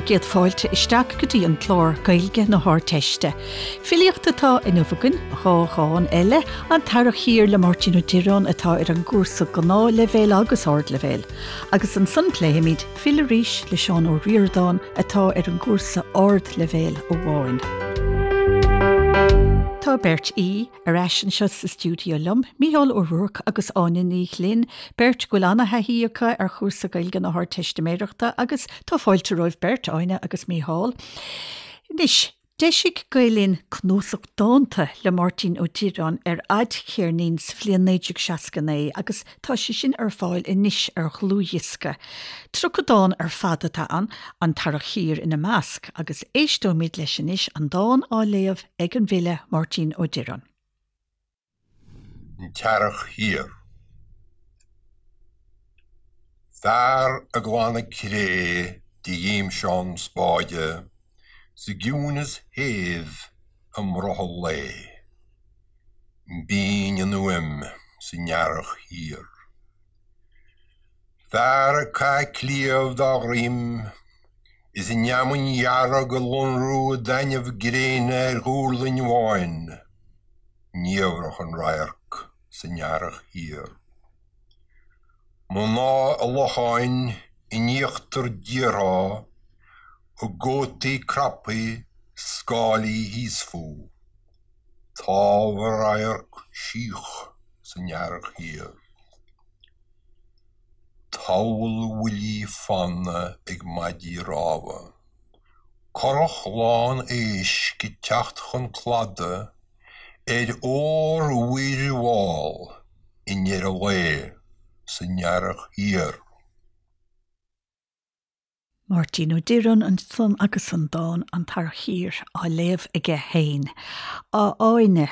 bhur gcéad fáilte isteach go dtí an clár Gaeilge na hArdteiste. Filíocht atá inniu againn, 2 dhán eile, An tEarrach Thiar le Máirtín Ó Direáin atá ar an gcúrsa Gnáthleibhéil agus Ardleibhéil. Agus ansan pléifimid Fill Arís le Seán Ó Ríordáin atá ar an gcúrsa Ardleibhéil amháin. Tá beirt aoi ar ais anseo sa stiúideo liom, Mícheál Ó Ruairc agus Áine Ní Ghlinn, beirt go bhfuil ana-thaithí acu ar chúrsa Gaeilge na hArdteistiméireachta agus tá fáilte romhaibh beirt, Áine agus Mícheál. Anois, D'eisigh Gael Linn cnuasach dánta le Máirtín Ó Direáin ar fhadcheirnín sa bhliain 1969 agus tá sé sin ar fáil anois ar dhlúthdhiosca. 30 dán ar fad atá ann, An tEarrach Thiar ina measc, agus éisteoimid leis anois, an dán á léamh ag an bhfile Máirtín Ó Direáin. An tEarrach Thiar. Fear ag glanadh cré de ghimseán spáide sa gciúnas shéimh i mbrothall lae. Binn an fhuaim san earrach thiar. Fear ag caitheamh cliabh dá dhroim is an fheamainn dhearg ag lonrú i dtaitneamh gréine ar dhúrlainn bháin. Niamhrach an radharc san earrach thiar. Mná i locháin in íochtar díortha a gcótaí craptha scáilí thíos fúthu. Támh a radharc síoch san earrach thiar. Tabhall bhuillí fanna ag maidí rámha. Curach lán éisc ag teacht chun cladaigh ar ór-mhuir mhall i ndeireadh lae san earrach thiar. Máirtín Ó Direáin ansan agus an dán 'An tEarrach Thiar' á léamh aige féin. A Áine,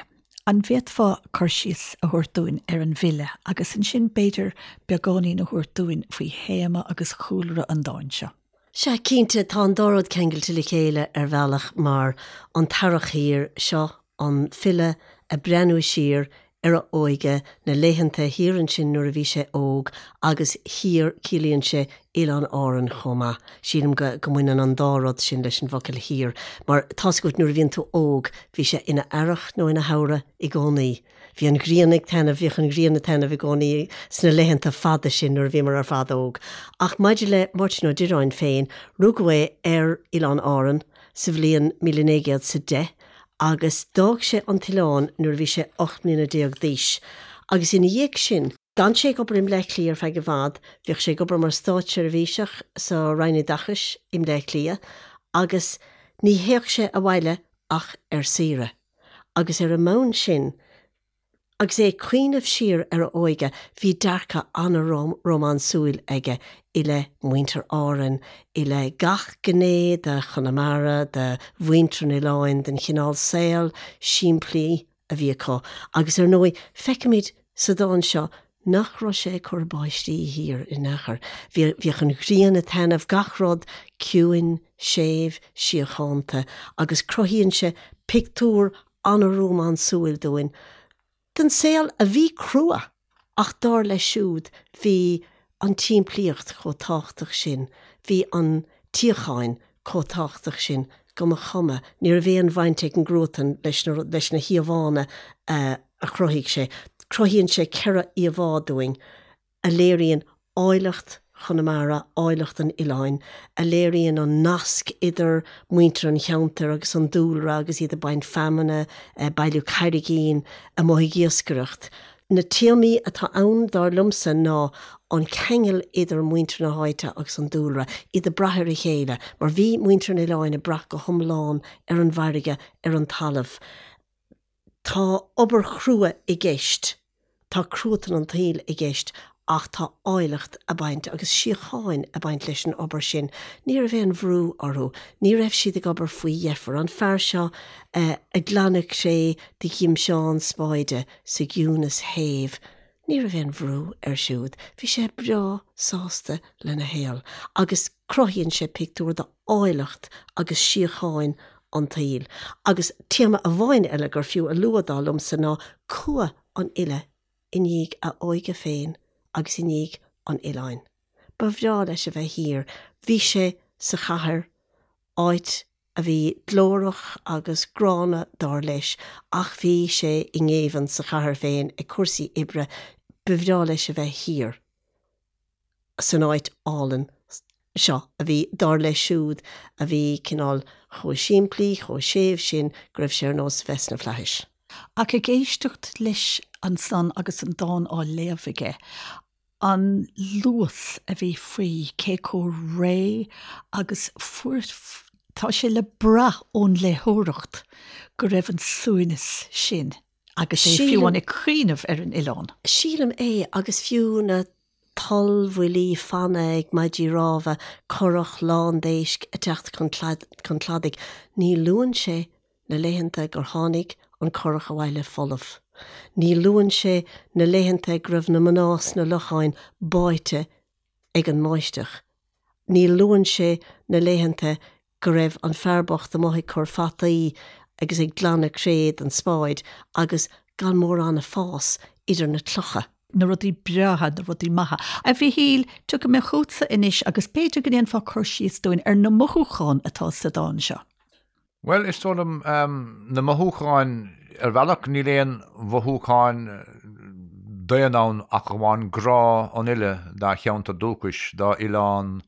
an bhféadfá cur síos a thabhairt dúinn ar an bhfile agus ansin b'fhéidir beagáinín a thabhairt dúinn faoi théama agus chúlra an dáin seo? Sea, cinnte, tá an dá rud ceangailte le chéile ar bhealach mar an tEarrach Thiar, seo an file ag breathnú siar ar a óige, na laethanta thiar ansin nuair a bhí sé óg agus thiar, ciallaíonn sé Oileáin Árann chomh maith. Sílim go go mbaineann an dá rud sin leis an bhfocal thiar mar tá's agat nuair a bhíonn tú óg, bhí sé ina earrach nó ina shamhradh i gcónaí. Bhí an ghrian ag taitneamh, bhíodh an ghrian ag taitneamh i gcónaí sna laethanta fada sin nuair a bhíomar ar fad óg. Ach maidir le Máirtín Ó Direáin féin, rugadh é ar Oileán Árann sa bhliain 1910 agus d'fhág sé an t-oileán nuair a bhí sé 18 mbliana d'aois agus ina dhiaidh sin, d'fhan sé ag obair i mBleá Cliath ar feadh i bhfad, bhíodh sé ag obair mar státseirbhíseach sa Roinn Oideachais i mBleá Cliath agus ní théadh sé abhaile ach ar saoire agus ar an mbonn sin, Agus é ag cuimhneamh siar ar a óige, bhí dearcadh an-rómánsúil aige i leith mhuintir Árann, i leith gach gné de Chonamara, de mhuintir an oileáin, den chineál saol simplí a bhí acu. Agus ar ndóigh, feicimid sa dán seo nach raibh sé ag cur báistí thiar in aon chor. Bhíodh an ghrian ag taitneamh, gach rud ciúin, séimh, síochánta, agus cruthaíonn sé pictiúr an-rómánsúil dúinn den saol a bhí crua ach dar leis siúd bhí an tsimplíocht chomh tábhachtach sin, bhí an tsíocháin chomh tábhachtach sin go mba chuma, ní raibh aon bhaint ag an gcruatan leis na leis na híomhánna a chruthaigh sé. Cruthaíonn sé 4 íomhá dúinn. a léiríonn áilleacht Chonamara, áilleacht an oileáin, a léiríonn an nasc idir muintir an cheantair agus an dúlra agus iad ag baint feamainne, ag bailiú carraigín, amuigh ag iascaireacht. Na téamaí atá ann, dar liomsa, ná an ceangal idir muintir na háite agus an dúlra, iad ag brath ar a chéile, mar bhí muintir an oileáin ag brath go hiomlán ar an bhfarraige, ar an talamh. Tá obair chrua i gceist, tá cruatan an tsaoil i gceist ach tá áilleacht ag baint agus síocháin ag baint leis an obair sin. Ní raibh aon bhrú orthu, ní raibh siad ag obair faoi dheifir. An fear seo ag glanadh cré de ghimseán spáide sa gciúnas shéimh, ní raibh aon bhrú air siúd, bhí sé breá sásta lena shaol agus cruthaíonn sé pictiúr d'áilleacht agus síocháin an tsaoil. Agus téama amháin eile gur fiú a lua, dar liomsa, ná cumha an fhile i ndiaidh a óige féin agus i ndiaidh an oileáin. Ba bhreá leis a bheith thiar. Bhí sé sa chathair. áit a bhí glórach agus gránna dar leis ach bhí sé i ngéibheann sa chathair féin ag cúrsaí oibre, ba bhreá leis a bheith thiar san áit álainn seo a bhí, dar leis siúd, a bhí cineál chomh simplí, chomh séimh sin go raibh sé ar nós a bheith sna flaithis. Ach ag éisteacht leis ansan agus an dán á léamh aige, an luas a bhí faoi, cé chomh réidh agus fuair, tá sé le brath ón léitheoireacht go raibh an suaimhneas sin agus é fiú amháin ag cuimhneamh ar an oileán. Sílim é, agus fiú na tollbhuillí fanna ag maidí rámha, curach lán d'éisc ag teacht chun cladaigh, ní luann sé na laethanta gur tháinig an curach abhaile folamh. Ní luann sé na laethanta go raibh na mná sna locháin báite ag an mbáisteach. Ní luann sé na laethanta go raibh an fear bocht amuigh ag cur fataí agus ag glanadh cré den spáid agus gan mórán ag fás idir na clocha. na rudaí breátha, na rudaí maithe. A Mhichíl, tiocfaidh mé chugatsa anois agus b'fhéidir go ndéanfá cur síos dúinn ar na mothúcháin atá sa dán seo. Bhuel, is dóigh liom, na mothúcháin, ar bhealach níl aon mhothúcháin daonna ann ach amháin grá an fhile dá cheantar dúchais, dá oileán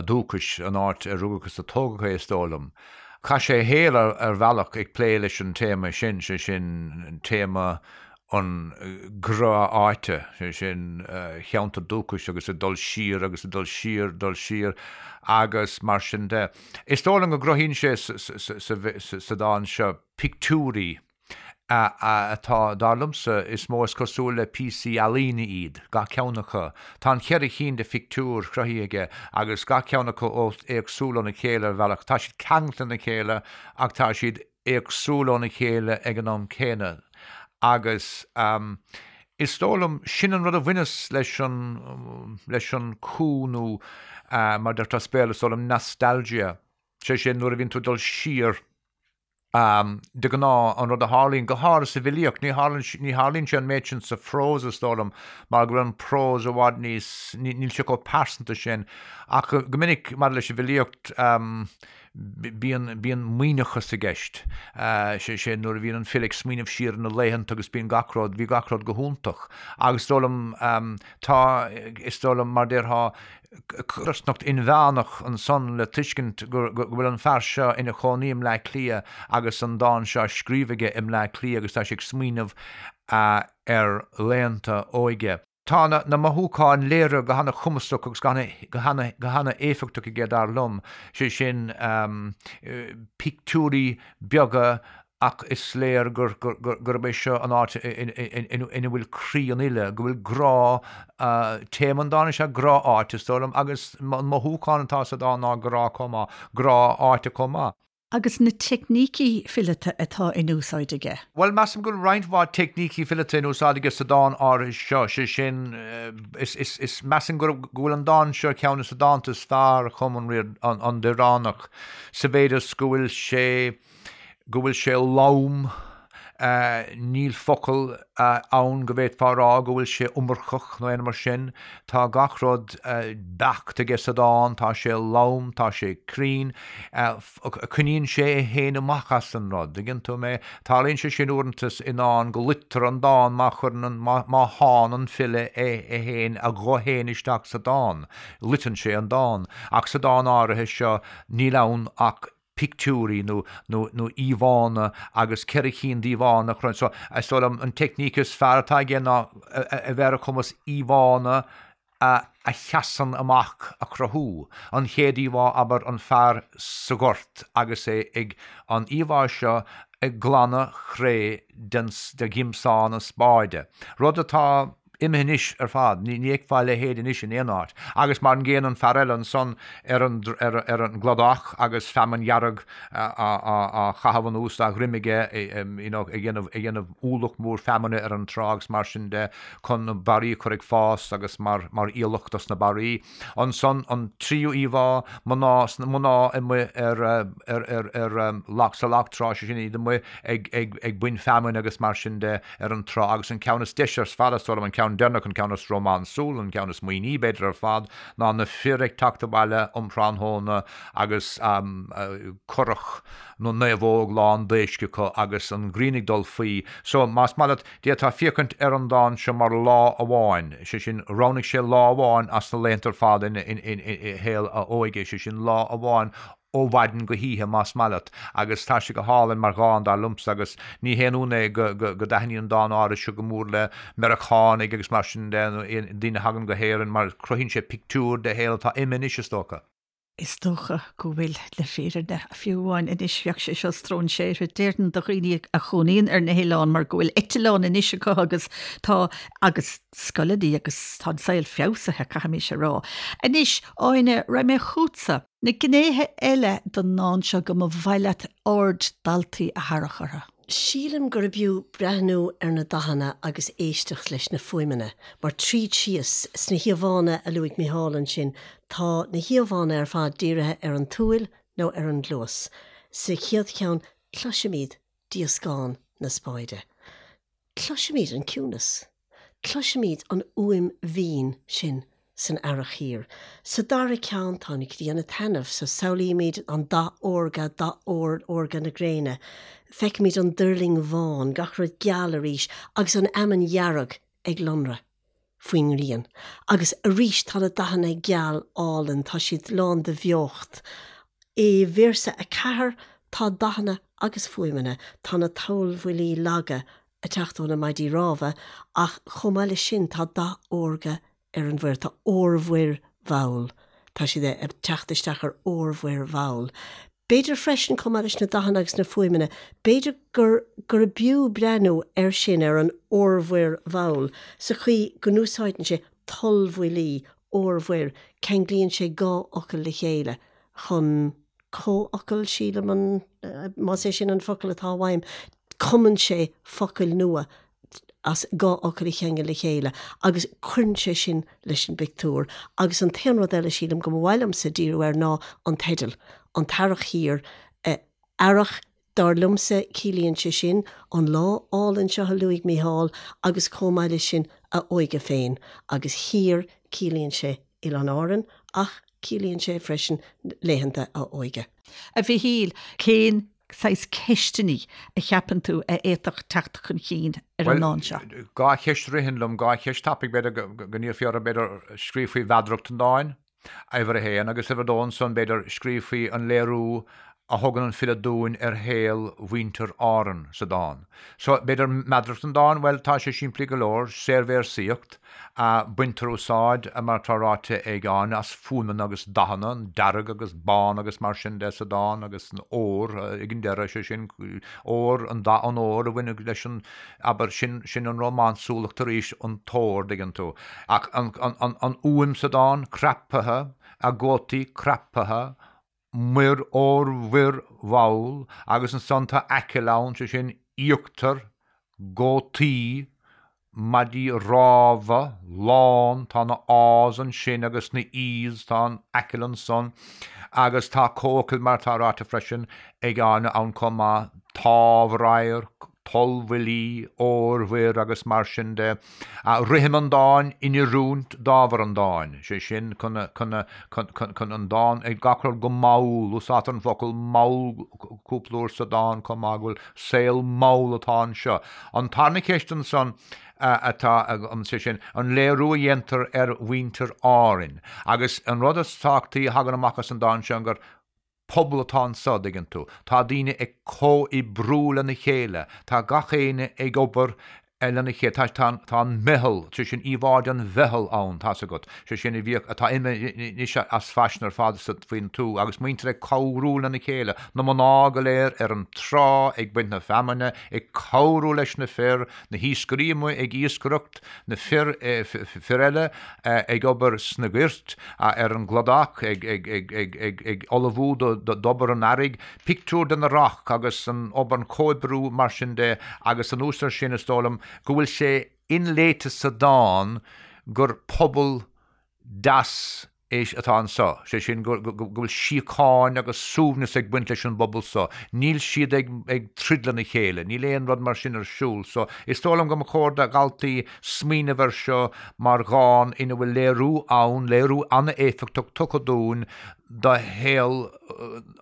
dúchais, an áit ar rugadh agus a tógadh é, is dóigh liom. Chaith sé a shaol ar bhealach ag plé leis an téama sin, sé sin téama an ghrá áite, sé sin, a cheantar dúchais agus ag dul siar agus ag dul siar, dul siar agus mar sin de. Is dóigh liom go gcruthaíonn sé sa dán seo pictiúirí atá, dar liomsa, is mó is cosúil le píosaí ealaíne iad, gach ceann acu. Tá an cheithre chinn de phictiúir cruthaithe aige agus gach ceann acu éagsúil óna chéile ar bhealach. Tá siad ceangailte lena chéile ach tá siad éagsúil óna chéile ag an am céanna agus is dóigh liom, sin an rud a bhaineas leis an, leis an cú nó mar deirtear as Béarla is dóigh liom nostalgia, sé sin nuair a bhíonn tú ag dul siar de ghnáth an rud a tharlaíonn, go háirithe sa bhfilíocht, ní tharlaíonn, ní tharlaíonn sé an méid sin sa phrós is dóigh liom mar go bhfuil an prós i bhfad níos, níl sé chomh pearsanta sin ach go minic maidir leis an bhfilíocht, Bíonn, bíonn maoithneachas i gceist, sé sin, nuair a bhíonn an file ag smaoineamh siar ar na laethanta agus bíonn gach rud, bhí gach rud go hiontach. Agus is dóigh liom, tá, is dóigh liom, mar déarfá, codarsnacht inmheánach ansan le tuiscint go, go bhfuil an fear seo ina chónaí i mBleá Cliath agus an dán seo á scríobh aige i mBleá Cliath agus tá sé ag smaoineamh ar laethanta óige. Tá na mothúcháin léirithe go hana-chumasach agus go hana-éifeachtach aige, dar liom, sé sin, pictiúirí beaga ach is léir gurb é seo an áit ina bhfuil croí an fhile, go bhfuil grá, téama an dáin is ea grá áite, is dóigh liom, agus an mothúchán atá sa dán ná grá chomh maith, grá áite chomh maith. Agus na teicnící fileata atá in úsáid aige. Bhuel, measaim go bhfuil roinnt mhaith teicnící fileata in úsáid aige sa dán áirithe seo, sé sin, is, is, is, measaim go, go bhfuil an dán seo ar cheann de na dánta is fearr a chum an, an Direánach, sa mhéid is go bhfuil sé, go bhfuil sé lom, Níl focal ann go bhféadfá a rá go bhfuil sé iomarcach nó aon rud mar sin. Tá gach rud beacht aige sa dán, tá sé lom, tá sé cruinn. Coinníonn sé é féin amach as an rud, dtuigeann tú mé? Tarlaíonn sé sin uaireanta i ndán go loitear an dán má chuireann an, má shánn an file é féin, a ghuth féin isteach sa dán. Loiteann sé an dán. Ach sa dán áirithe seo níl ann ach pictiúirí nó nó nó íomhánna agus 4 chinn d'íomhánna a chruthú. So, is dóigh liom an teicníc is fearr atá aige ná a bheith ar a chumas íomhánna a a sheasann amach a chruthú. An chéad íomhá, abair, an fear sa ghort agus é ag an íomhá seo ag glanadh cré den de ghiomsán an spáide. Rud atá imithe anois ar fad, ní fheicfeá a leithéid anois in aon áit. Agus mar an gcéanna an fear eile ansan ar an ar an gcladach agus feamainn dhearg á chaitheamh anuas dá dhroim aige, you know, ag déanamh ag déanamh ualach mór feamainne ar an trá agus mar sin de chun na barraí a chur ag fás agus mar mar aoileach dos na barraí. Ansan an tríú íomhá, mná mná amuigh ar ar ar ar loch sa loch trá, sé sin iad amuigh ag ag ag baint feamainne agus mar sin de ar an trá agus an ceann is deise ar fad is dóigh liom an ceann. ceann deireanach, an ceann is rómánsúla, an ceann is maoithní b'fhéidir ar fad, ná na fir ag teacht abhaile um thráthnóna agus curach na naomhóg lán d'éisc acu agus an ghrian ag dul faoi. So, más maith leat, d'fhéadfá féachaint ar an dán seo mar lá amháin, sé sin, roghnaigh sé lá amháin as na laethanta ar fad ina shaol a óige, sé sin, lá amháin ó mhaidin go hoíche, más maith leat, agus tá sé go hálainn mar dhán, dar liomsa, agus ní haon ionadh é go dtaitníonn an dán áirithe seo go mór le Meiriceánaigh agus mar sin de, nó daoine a thagann go hÉirinn, mar cruthaíonn sé pictiúr de shaol atá imithe anois, is dócha. Is dócha go bhfuil, le fírinne, fiú amháin anois bheadh sé seo stróinséartha, déarfainn, do dhaoine a chónaíonn ar na hoileáin mar go bhfuil eitleán anois acu agus tá, agus scoileanna agus tá an saol feabhsaithe, caithfimis a rá. Anois, Áine, raghaidh mé chugatsa. Na gnéithe eile den ndán seo go mba mhaith leat aird daltaí a tharrac orthu. Sílim gurb fhiú breathnú ar na dathanna agus éisteacht leis na fuaimeanna, mar tríd síos, sna híomhánna a luaigh Micheál ansin, tá na híomhánna ar fad dírithe ar an tsúil nó ar an gcluas. Sa chéad cheann, cloisimid díoscán na spáide. Cloisimid an ciúnas. Cloisimid an fhuaim mhín sin san earrach thiar. Sa dara ceann tá an ghrian ag taitneamh, so samhlaímid an dath órga, dath ór, órga na gréine. Feicimid an duirling bhán, gach rud geal arís, agus an fheamainn dhearg ag lonradh faoin ngrian. Agus arís tá na dathanna geal álainn, tá siad lán de bheocht. I véarsa 4 tá dathanna agus fuaimeanna, tá na tollbhuillí laga ag teacht ó na maidí rámha ach chomh maith leis sin tá dath órga ar an mhuir, tá órmhuir mhall, tá siad ag teacht isteach ar órmhuir mhall. B'fhéidir freisin, chomh maith leis na dathanna agus na fuaimeanna, b'fhéidir gur gurb fhiú breathnú air sin, ar an órmhuir mhall, sa chaoi go n-úsáideann sé tollbhuillí, órmhuir, ceanglaíonn sé dhá fhocal le chéile chun comhfhocal, sílim an, más é sin an focal atá uaim, cumann sé focail nua as dhá fhocal a cheangal le chéile agus cuireann sé sin leis an bpictiúr. Agus an t-aon rud eile, sílim, go mba mhaith liomsa díriú air ná an teideal, An tEarrach Thiar. Earrach, dar liomsa, ciallaíonn sé sin an lá álainn seo a luaigh Mícheál agus chomh maith leis sin a óige féin agus thiar, ciallaíonn sé Oileáin Árann ach ciallaíonn sé freisin laethanta a óige. A Mhichíl, cén saghas ceisteanna a cheapann tú a fhéadfadh teacht chun cinn ar an ndán seo? Bhuel, dhá cheist a ritheann liom, dhá cheist tapaidh, b'fhéidir go n-iarrfaí orthu, b'fhéidir, scríobh faoi mheadaracht an dáin, uimhir a haon, agus uimhir a dó ansan, b'fhéidir, scríobh faoi an léiriú a thugann an file dúinn ar shaol mhuintir Árann sa dán. So, b'fhéidir meadaracht an dáin, bhuel, tá sé simplí go leor, saorvéarsaíocht, baintear úsáid, mar atá ráite ag Áine, as fuaimeanna agus dathanna, an dearg agus bán agus mar sin de sa dán agus an ór ag an deireadh, sé sin, ór, an dath an óir a bhaineann leis an, abair, sin, sin an rómánsúlacht arís, an t-ór, dtuigeann tú. Ach an, an, an, an fhuaim sa dán, craptha, a gcótaí craptha, muir órmhuir mhall, agus ansan tá aiceall ann, sé sin, íochtar, gcótaí, maidí rámha, lán, tá na A's ansin agus na E's, tá an aiceall ansan, agus tá comhfhocail mar atá ráite freisin ag Áine ann chomh maith, támhradharc, tollbhuillí, órmhuir agus mar sin de. Rithim an dáin in oiriúint d'ábhar an dáin, sé sin, chun an dán, gach rud go mall, úsáidtear an focal mall cúpla uair sa dán chomh maith, go bhfuil saol mall atá anseo. An tarna ceist ansan atá agam, sé sin, an léiriú a dhéantar ar mhuintir Árainn. Agus an rud is tábhachtaí a thagann amach as an dán seo gur pobal atá anso, dtuigeann tú. Tá daoine ag comhoibriú lena chéile, tá gach éinne ag obair lena chéile, tá, tá, tá an meitheal, sé sin íomhá den mheitheal ann, tá's agat, sé sin a bhíodh, atá imithe anois as faisean ar fad sa, faoin tuath, agus muintir ag cabhrú lena chéile, na mná go léir ar an trá ag baint na feamainne, ag cabhrú leis na fir, na hiascairí amuigh ag iascaireacht, na fir, fir eile ag obair sna goirt, ar an gcladach, ag ullmhú d'obair an earraigh, pictiúr den earrach agus an obair, an comhoibriú mar sin de agus anuas air sin is dóigh liom go bhfuil sé inléite sa dán gur pobal deas. é atá anseo, sé sin go bhfuil síocháin agus suaimhneas ag baint leis an bpobal so. Níl siad ag troid lena chéile, níl aon rud mar sin ar siúl. So, is dóigh liom go mba chóir do dhaltaí smaoineamh air seo mar dhán ina bhfuil léiriú ann, léiriú an-éifeachtach tugtha dúinn do shaol,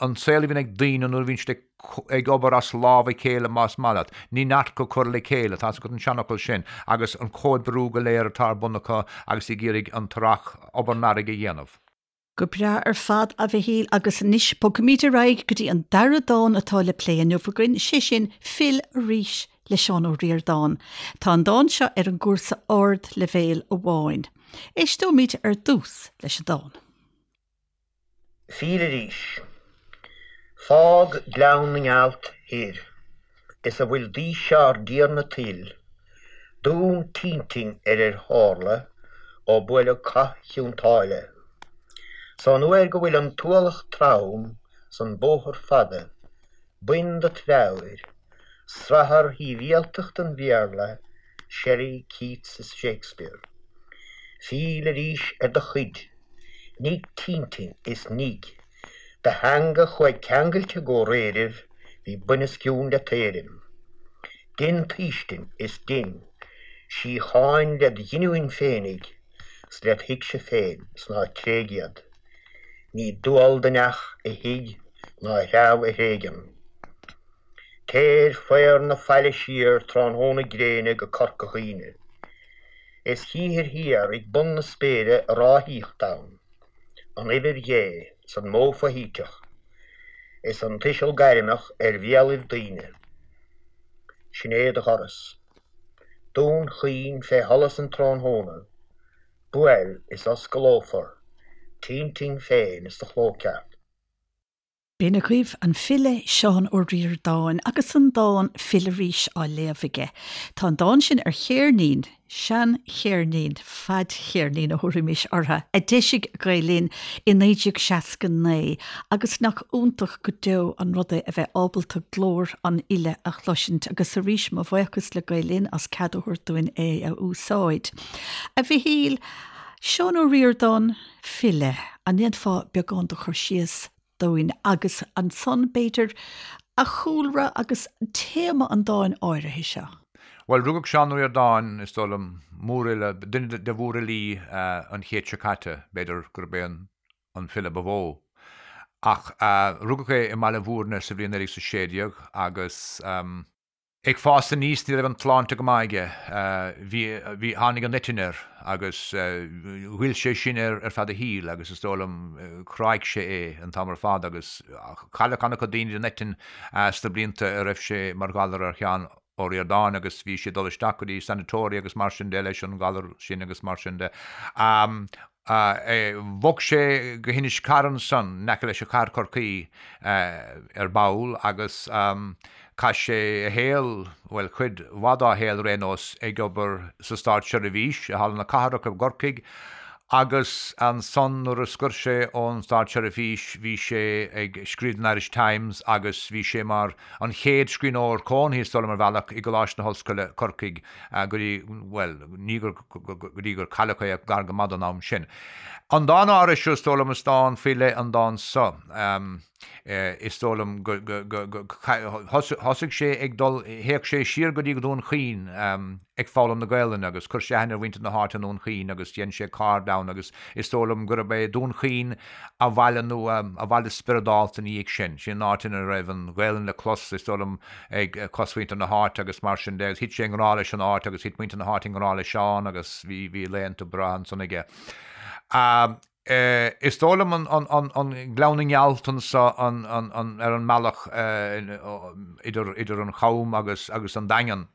an saol a bhíonn ag daoine nuair a bhíonn siad ag ag obair as lámh a chéile más maith leat. Ní neart go cur le chéile, tá's agat an seanfhocal sin, agus an comhoibriú go léir atá ar bun acu agus ag iarraidh an t-earrach, obair an earraigh a dhéanamh. Go breá ar fad, a Mhichíl, agus anois bogfaimid ar aghaidh go dtí an dara dán atá le plé inniu againn, sé sin Fill Arís le Seán Ó Ríordáin. Tá an dán seo ar an gcúrsa ardleibhéil amháin. Éisteoimid ar dtús leis an dán. Fill arís. Fág Gleann na nGealt thoir is a bhfuil d'aois ár dTiarna tuil, Dún t'intinn ar ar tharla ó buaileadh Cath Chionn tSáile. 'S ón uair go bhfuil an t-ualach trom 's an bóthar fada, bain dot mheabhair, srathar shibhialtacht an Bhéarla, Shelley, Keats is Shakespeare. Fill arís ar do chuid, nigh t'intinn is nigh do theanga chuaigh ceangailte go réiribh bhí buinoscionn le t'éirim. Dein t'fhaoistin is dein síocháin led ghiniúin féinig 's led thuigse féin 's ná tréig iad. Ní dual do neach a thigh ná a threabh a thréigean. Téir faobhar na faille siar tráthnóna gréine go Corca Dhuibhne. Is chíthir thiar ag bun na spéire a ráthaíocht ann, an uimhir Dhé 's an modh foshuiteach, is an tuiseal gairmeach ar bhéalaibh daoine. Sin é do dhoras. Dún Chaoin fé sholas an tráthnóna, buail is osclófar t'intinn féin is do chló ceart. B'in agaibh an file Seán Ó Ríordáin agus an dán 'Fill Arís' á léamh aige. Tá an dán sin ar cheirnín, sean-cheirnín, fadcheirnín a thabharfaimis orthu, a d'eisigh Gael Linn i 1969 agus nach iontach go deo an rud é a bheith ábalta glór an fhile a chloisint agus arís mo bhuíochas le Gael Linn as cead a thabhairt dúinn é a úsáid. A Mhichíl, Seán Ó Ríordáin, file, an ndéanfá beagán de chur síos dúinn agus ansan, b'fhéidir, a chúlra agus téama an dáin áirithe seo. Bhuel, rugadh Seán Ó Ríordáin, is dóigh liom, mórfhile, duine de mhórfhilí an chéid seo caite, b'fhéidir gurb é an file ba mhó. Ach rugadh é i mBaile Bhúirne sa bhliain 1916 agus. Ag fás aníos ní raibh an tsláinte go maith aige. Bhí, bhí, tháinig an eitinn air agus ghoill sé sin air ar feadh a shaoil agus is dóigh liom chráigh sé é an t-am ar fad agus cailleadh an-chuid daoine den eitinn sna blianta a raibh sé mar ghalar ar Sheán Ó Ríordáin agus bhí sé ag dul isteach go dtí sanatoria agus mar sin de leis an ghalar sin agus mar sin de. Bhog sé go hInis Carra ansan, in aice leis an chathair Chorcaí, ar ball agus chaith sé a shaol, bhuel, cuid mhaith dá shaol ar aon nós, ag obair sa státseirbhís i Halla na Cathrach i gCorcaigh agus ansan nuair a scoir sé ón státseirbhís bhí sé ag scríobh don Irish Times agus bhí sé mar an chéad scríbhneoir cónaithe, is dóigh liom, ar bhealach, i gColáiste na hOllscoile, Corcaigh, go dtí, bhuel, ní gur, go dtí gur cailleadh é ach gar go maith don am sin. An dán áirithe seo, is dóigh liom, is dán faoi leith an dán seo. Is dóigh liom go, go, go, go, thosaigh sé ag dul, théadh sé siar go dtí Dún Chaoin ag foghlaim na Gaelainne agus chuir sé aithne ar mhuintir na háite i nDún Chaoin agus dhein sé cairde ann agus is dóigh liom gurb é Dún Chaoin a bhaile nó a bhaile spioradálta ina dhiaidh sin. Sin an áit ina raibh an Ghaelainn le clos, is dóigh liom, ag cosmhuintir na háite agus mar sin de agus thit sé i ngrá leis an áit agus thit muintir na háite i ngrá le Seán agus bhí bhí laethanta breátha ansan aige. Is dóigh liom an Gleann na nGealt anso ar an mbealach idir idir an Cham agus agus an Daingean.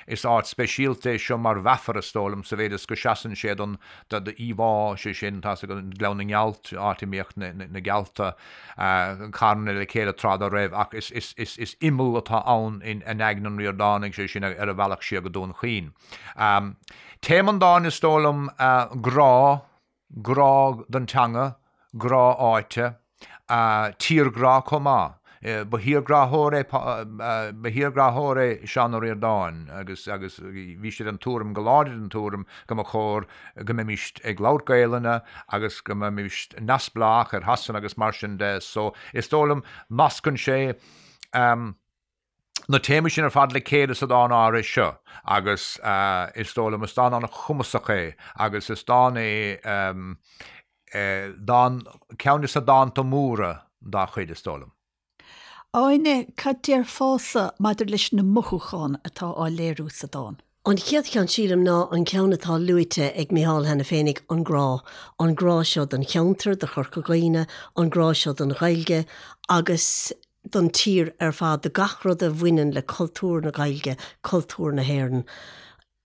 Is áit speisialta é seo mar mheafar, is dóigh liom, sa mhéid is go seasann sé don íomhá, sé sin, tá's agat, Gleann na nGealt, áit a mbíodh na gealta carnaithe le chéile tráth dá raibh, ach is imeall atá ann in aigne an Ríordánaigh, sé sin, ar a bhealach siar go Dún Chaoin. Téama an dáin, is dóigh liom, grá, grá don teanga, grá áite, tírghrá chomh maith. Ba thírghráthóir é ba thírghráthóir é Seán Ó Ríordáin agus agus bhí sé den tuairim, go láidir den tuairim, go mba chóir go mbeimis ag labhairt Gaelainne agus go mbeimis neamhspleách ar Shasana agus mar sin de. So is dóigh liom nascann sé na téamaí sin ar fad le chéile sa dán áirithe seo agus is dóigh liom is dán an-chumasach é agus is dán é dán, ceann de na dánta móra dá chuid, is dóigh liom. Áine, cad déarfása maidir leis na mothúcháin atá á léiriú sa dán? An chéad cheann, sílim, ná an ceann atá luaite ag Micheál cheana féinig, an grá. An grá seo don cheantar, do Chorca Dhuibhne, an grá seo don Ghaeilge agus don tír ar fad, do gach rud a bhaineann le cultúr na Gaeilge, cultúr na hÉireann.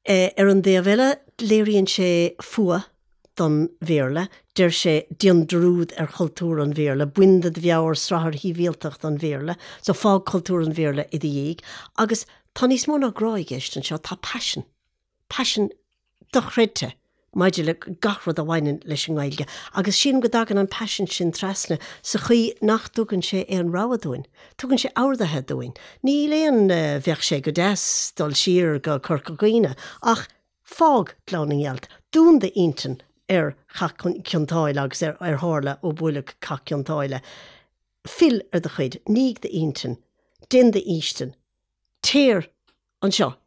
Ar an dtaobh eile, léiríonn sé fuath don Bhéarla. Deir sé, déan dearúd ar chultúr an Bhéarla, bain de do mheabhair srathair shibhialtacht an Bhéarla, so fág cultúr an Bhéarla i do dhiaidh. Agus tá níos mó ná grá i gceist anseo, tá paisean. Paisean dochreidte maidir le gach rud a bhaineann leis an nGaeilge. Agus sílim go dtagann an paisean sin trasna sa chaoi nach dtugann sé aon rogha dúinn. Tugann sé orduithe dúinn. Níl aon bheadh sé go deas dul siar go Corca Dhuibhne ach fág Gleann na nGealt, dún d'intinn ar Chath Cionn tSáile agus ar ar tharla ó buaileadh Cath Cionn tSáile. Fill ar do chuid, nígh d'intinn, déan d'fhaoistin, Téir anseo.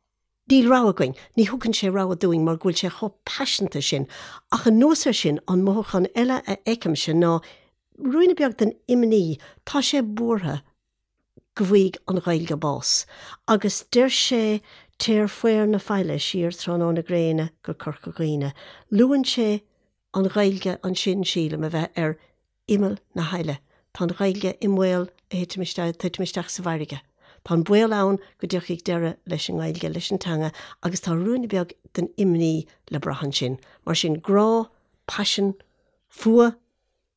Níl rogha againn. Ní thugann sé rogha dúinn mar go bhfuil sé chomh paiseanta sin. Ach anuas air sin, an mothúchán eile a fheicimse ná ruainne beag den imní. Tá sé buartha go bhfaighidh an Ghaeilge bás. Agus deir sé Téir faobhar na faille siar tráthnóna gréine go Corca Dhuibhne. Luann sé an Ghaeilge ansin, sílim, a bheith ar imeall na haille. Tá an Ghaeilge i mbaol a thitim isteach, titim isteach sa bhfarraige. Tá an baol ann go dtiocfaidh deireadh leis an nGaeilge, leis an teanga agus tá ruainne beag den imní le brath ansin. Mar sin, grá, paisean, fuath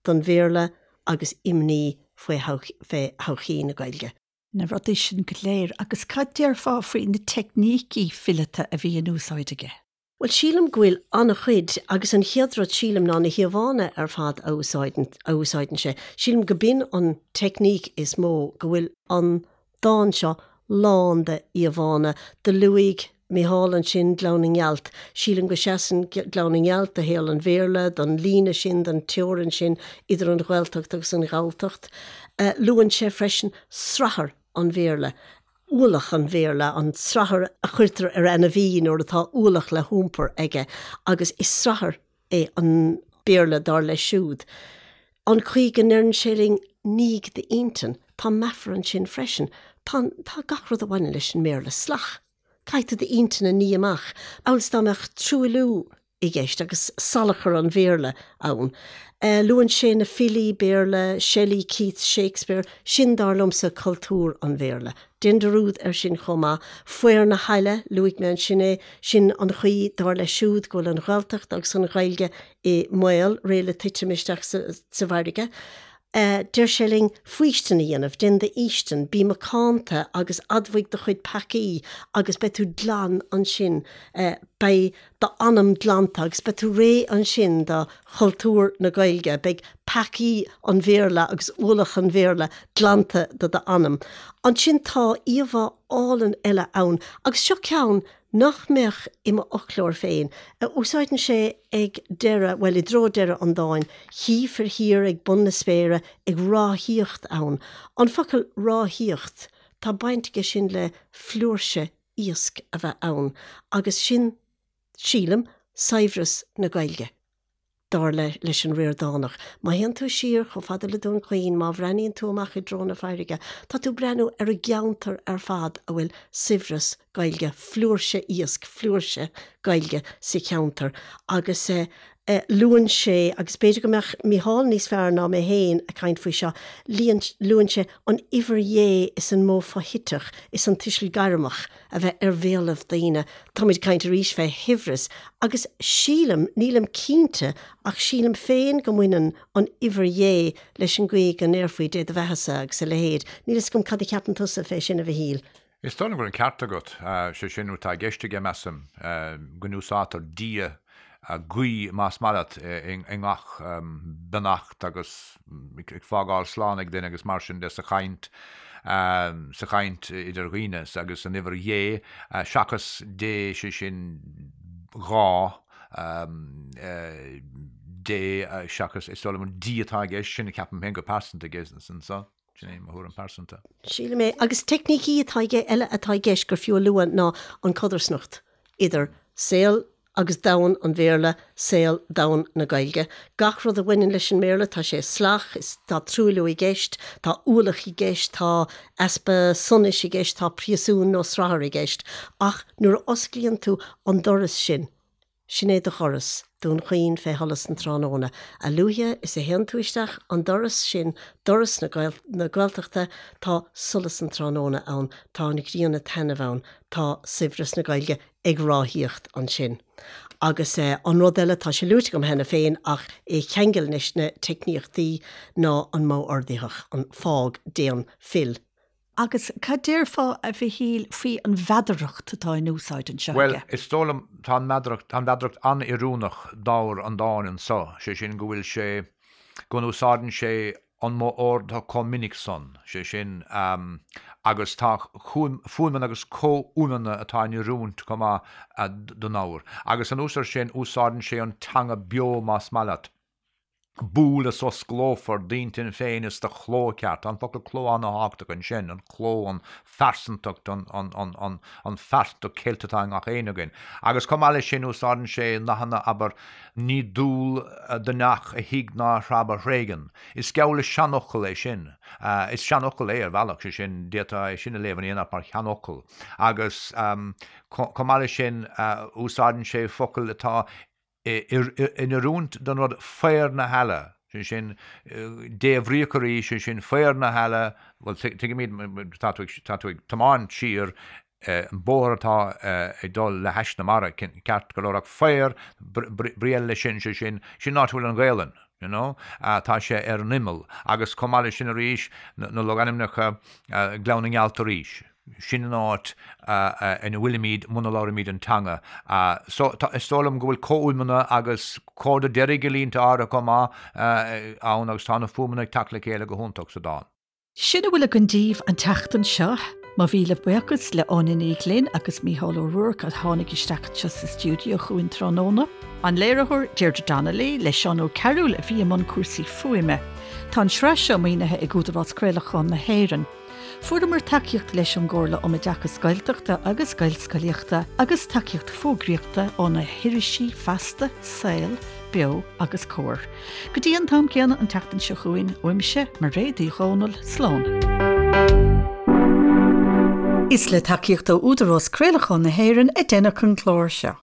don Bhéarla agus imní faoi thodhchaí na Gaeilge. Na rudaí sin go léir. Agus cad déarfá faoi na teicnící fileata a bhí in úsáid aige? Bhuel, sílim go bhfuil an-chuid, agus an chéad rud sílim ná na híomhánna ar fad a úsáideann, a úsáideann sé. Sílim go b'in an teicníc is mó, go bhfuil an dán seo lán de íomhánna. Do luaigh Micheál ansin Gleann na nGealt. Sílim go seasann Gleann na nGealt do shaol an Bhéarla, don líne sin, don teorainn sin idir an Ghaeltacht agus an Ghalltacht. Luann sé freisin srathar an Bhéarla. ualach an Bhéarla, an srathar a chuirtear ar ainmhí nuair atá ualach le hiompar aige, agus is srathar é an Béarla dar leis siúd. An chaoi go ndeireann sé linn 'nígh d'intinn', tá meafar ansin freisin. Tá, tá gach rud a bhaineann leis an mBéarla salach. Caithfidh tú d'intinn a ní amach, amhail is dá mbeadh truailliú i gceist agus salachar an Bhéarla ann. Luann sé na filí Béarla, Shelley, Keats, Shakespeare, sin dar liomsa cultúr an Bhéarla. Déan dearúd air sin chomh maith. Faobhar na haille, luaigh mé ansin é, sin an chaoi, dar leis siúd, go bhfuil an Ghaeltacht agus an Ghaeilge i mbaol, réidh le titim isteach sa bhfarraige. Deir sé linn faoistin a dhéanamh, déan d'fhaoistin, bí macánta agus admhaigh do chuid peacaí agus beidh tú glan ansin, beidh d'anam glanta agus beidh tú réidh ansin do chultúr na Gaeilge, beidh peacaí an Bhéarla agus ualach an Bhéarla glanta de d'anam. Ansin tá íomhá álainn eile ann agus seo ceann nach mbeadh i m'fhoclóir féin, a úsáideann sé ag deireadh, bhuel, i dtreo deireadh an dáin, Chífir thiar ag bun na spéire ag ráthaíocht ann. An focal ráthaíocht, tá baint aige sin le flúirse iasc a bheith ann, agus sin, sílim, saibhreas na Gaeilge. dar le leis an Ríordánach. Má théann tú siar chomh fada le Dún Chaoin, má bhreathnaíonn tú amach i dtreo na farraige, tá tú ag breathnú ar an gceantar ar fad a bhfuil saibhreas Gaeilge, flúirse iasc, flúirse Gaeilge sa cheantar. Agus luann sé, agus b'fhéidir go mbeadh Mícheál níos fearr ná mé féin ag caint faoi seo, luann sé an uimhir Dhé is an modh foshuiteach is an tuiseal gairmeach a bheith ar bhéalaibh daoine. Táimid ag caint arís fé shaibhreas agus sílim, nílim cinnte, ach sílim féin go mbaineann an uimhir Dhé leis an gcaoi go ndéarfaí Dé do bheathasa agus a leithéid. Níl fhios agam cad a cheapann tusa fé sin, a Mhichíl. Is dóigh liom go bhfuil an ceart agat. Sé sin atá i gceist aige, measaim, go n-úsáidtear Dia. guí, más maith leat, i ngach beannacht agus ag fágáil slán ag duine agus mar sin de sa chaint, sa chaint idir dhaoine agus an uimhir dhé, seachas Dé, sé sin dhá Dé seachas, is dóigh liom an D atá i gceist, sin a ceapaim féin go pearsanta aige anso. Sin é mo thuairim pearsanta. Sílim é. Agus teicnící atá aige eile atá i gceist gur fiú a lua ná an codarsnacht idir saol agus domhan an Bhéarla, saol, domhan na Gaeilge. Gach rud a bhaineann leis an mBéarla, tá sé salach, is tá truailliú i gceist, tá ualach i gceist, tá easpa sonais i gceist, tá príosún nó srathar i gceist. Ach nuair a osclaíonn tú an doras sin, Sin é do dhoras, Dún Chaoin fé sholas an tráthnóna. A luaithe is a théann tú isteach an doras sin, doras na Gaeltachta, tá solas an tráthnóna ann, tá an ghrian ag taitneamh ann, tá saibhreas na Gaeilge ag ráthaíocht ansin. Agus an rud eile, tá sé luaite agam cheana féin ach é a cheangal leis na teicníochtaí, ná an modh ordaitheach, an fág, déan, fill. Agus cad déarfá, a Mhichíl, faoi an mheadaracht atá in úsáid anseo Bhuel, aige? is dóigh liom, tá an mheadaracht, tá an mheadaracht an-oiriúnach d'ábhar an dáin anso, sé sin go bhfuil sé, go n-úsáideann sé an modh ordaitheach chomh minic san, sé sin, agus tá fuaimeanna agus comhfhuaimeanna atá in oiriúint chomh maith don ábhar. Agus anuas air sin, úsáideann sé an teanga beo más maith leat. Buail is osclófar d'intinn féin is do chló ceart. Tá an focal cló an-thábhachtach ansin, an cló, an phearsantacht, an, an, an, an, an phearsantacht cheilte atá i ngach éinne againn. Agus chomh maith leis sin, úsáideann sé nathanna, abair, ní dual do neach a thig ná a threab a thréigean. Is geall le seanfhocal é sin. Is seanfhocal é ar bhealach, sé sin, d'fhéadfá é sin a léamh in aon áit mar sheanfhocal. Agus chomh maith leis sin, úsáideann sé focail atá in oiriúint don rud faobhar na heala, sé sin, débhríoch arís, sé sin, faobhar na heala, bhuel, tuigimid, tá tú ag, tá tú ag tiomáint siar an bóthar atá ag dul le hais na mara, ceart go leor, ach faobhar, brí eile leis sin, sé sin, sin an áit a bhfuil an Ghaelainn, you know, tá sé ar an imeall, agus chomh maith leis sin arís, na logainmneacha, Gleann na nGealt arís. Sin an áit ina bhfuilimid muna labhraímid an teanga. So, is dóigh liom go bhfuil comhfhuaimeanna agus comhardadh deiridh i línte áirithe chomh maith ann agus tá na fuaimeanna ag teacht le chéile go hiontach sa dán. Sin a bhfuil againn daoibh an tseachtain seo. Mo mhíle buíochas le Áine Ní Ghlinn agus Mícheál Ó Ruairc a tháinig isteach anseo sa stiúideo chugainn tráthnóna. An léiritheoir Deirdre Donnelly le Seán Ó Cearúil a bhí i mbun cúrsaí fuaime. Tá an tsraith seo maoinithe ag Údarás Craolacháin na hÉireann. Fuaireamar tacaíocht leis ón gComhairle um Oideachas Gaeltachta agus Gaelscolaíochta agus tacaíocht fógraíochta ó na hirisí Feasta, Saol, Beo agus Comhar. Go dtí an t-am céanna an tseachtain seo chugainn, uaimse, Mairéad Uí Dhomhnaill, slán. Is le tacaíocht ó Údarás Craolacháin na hÉireann a deineadh an clár seo.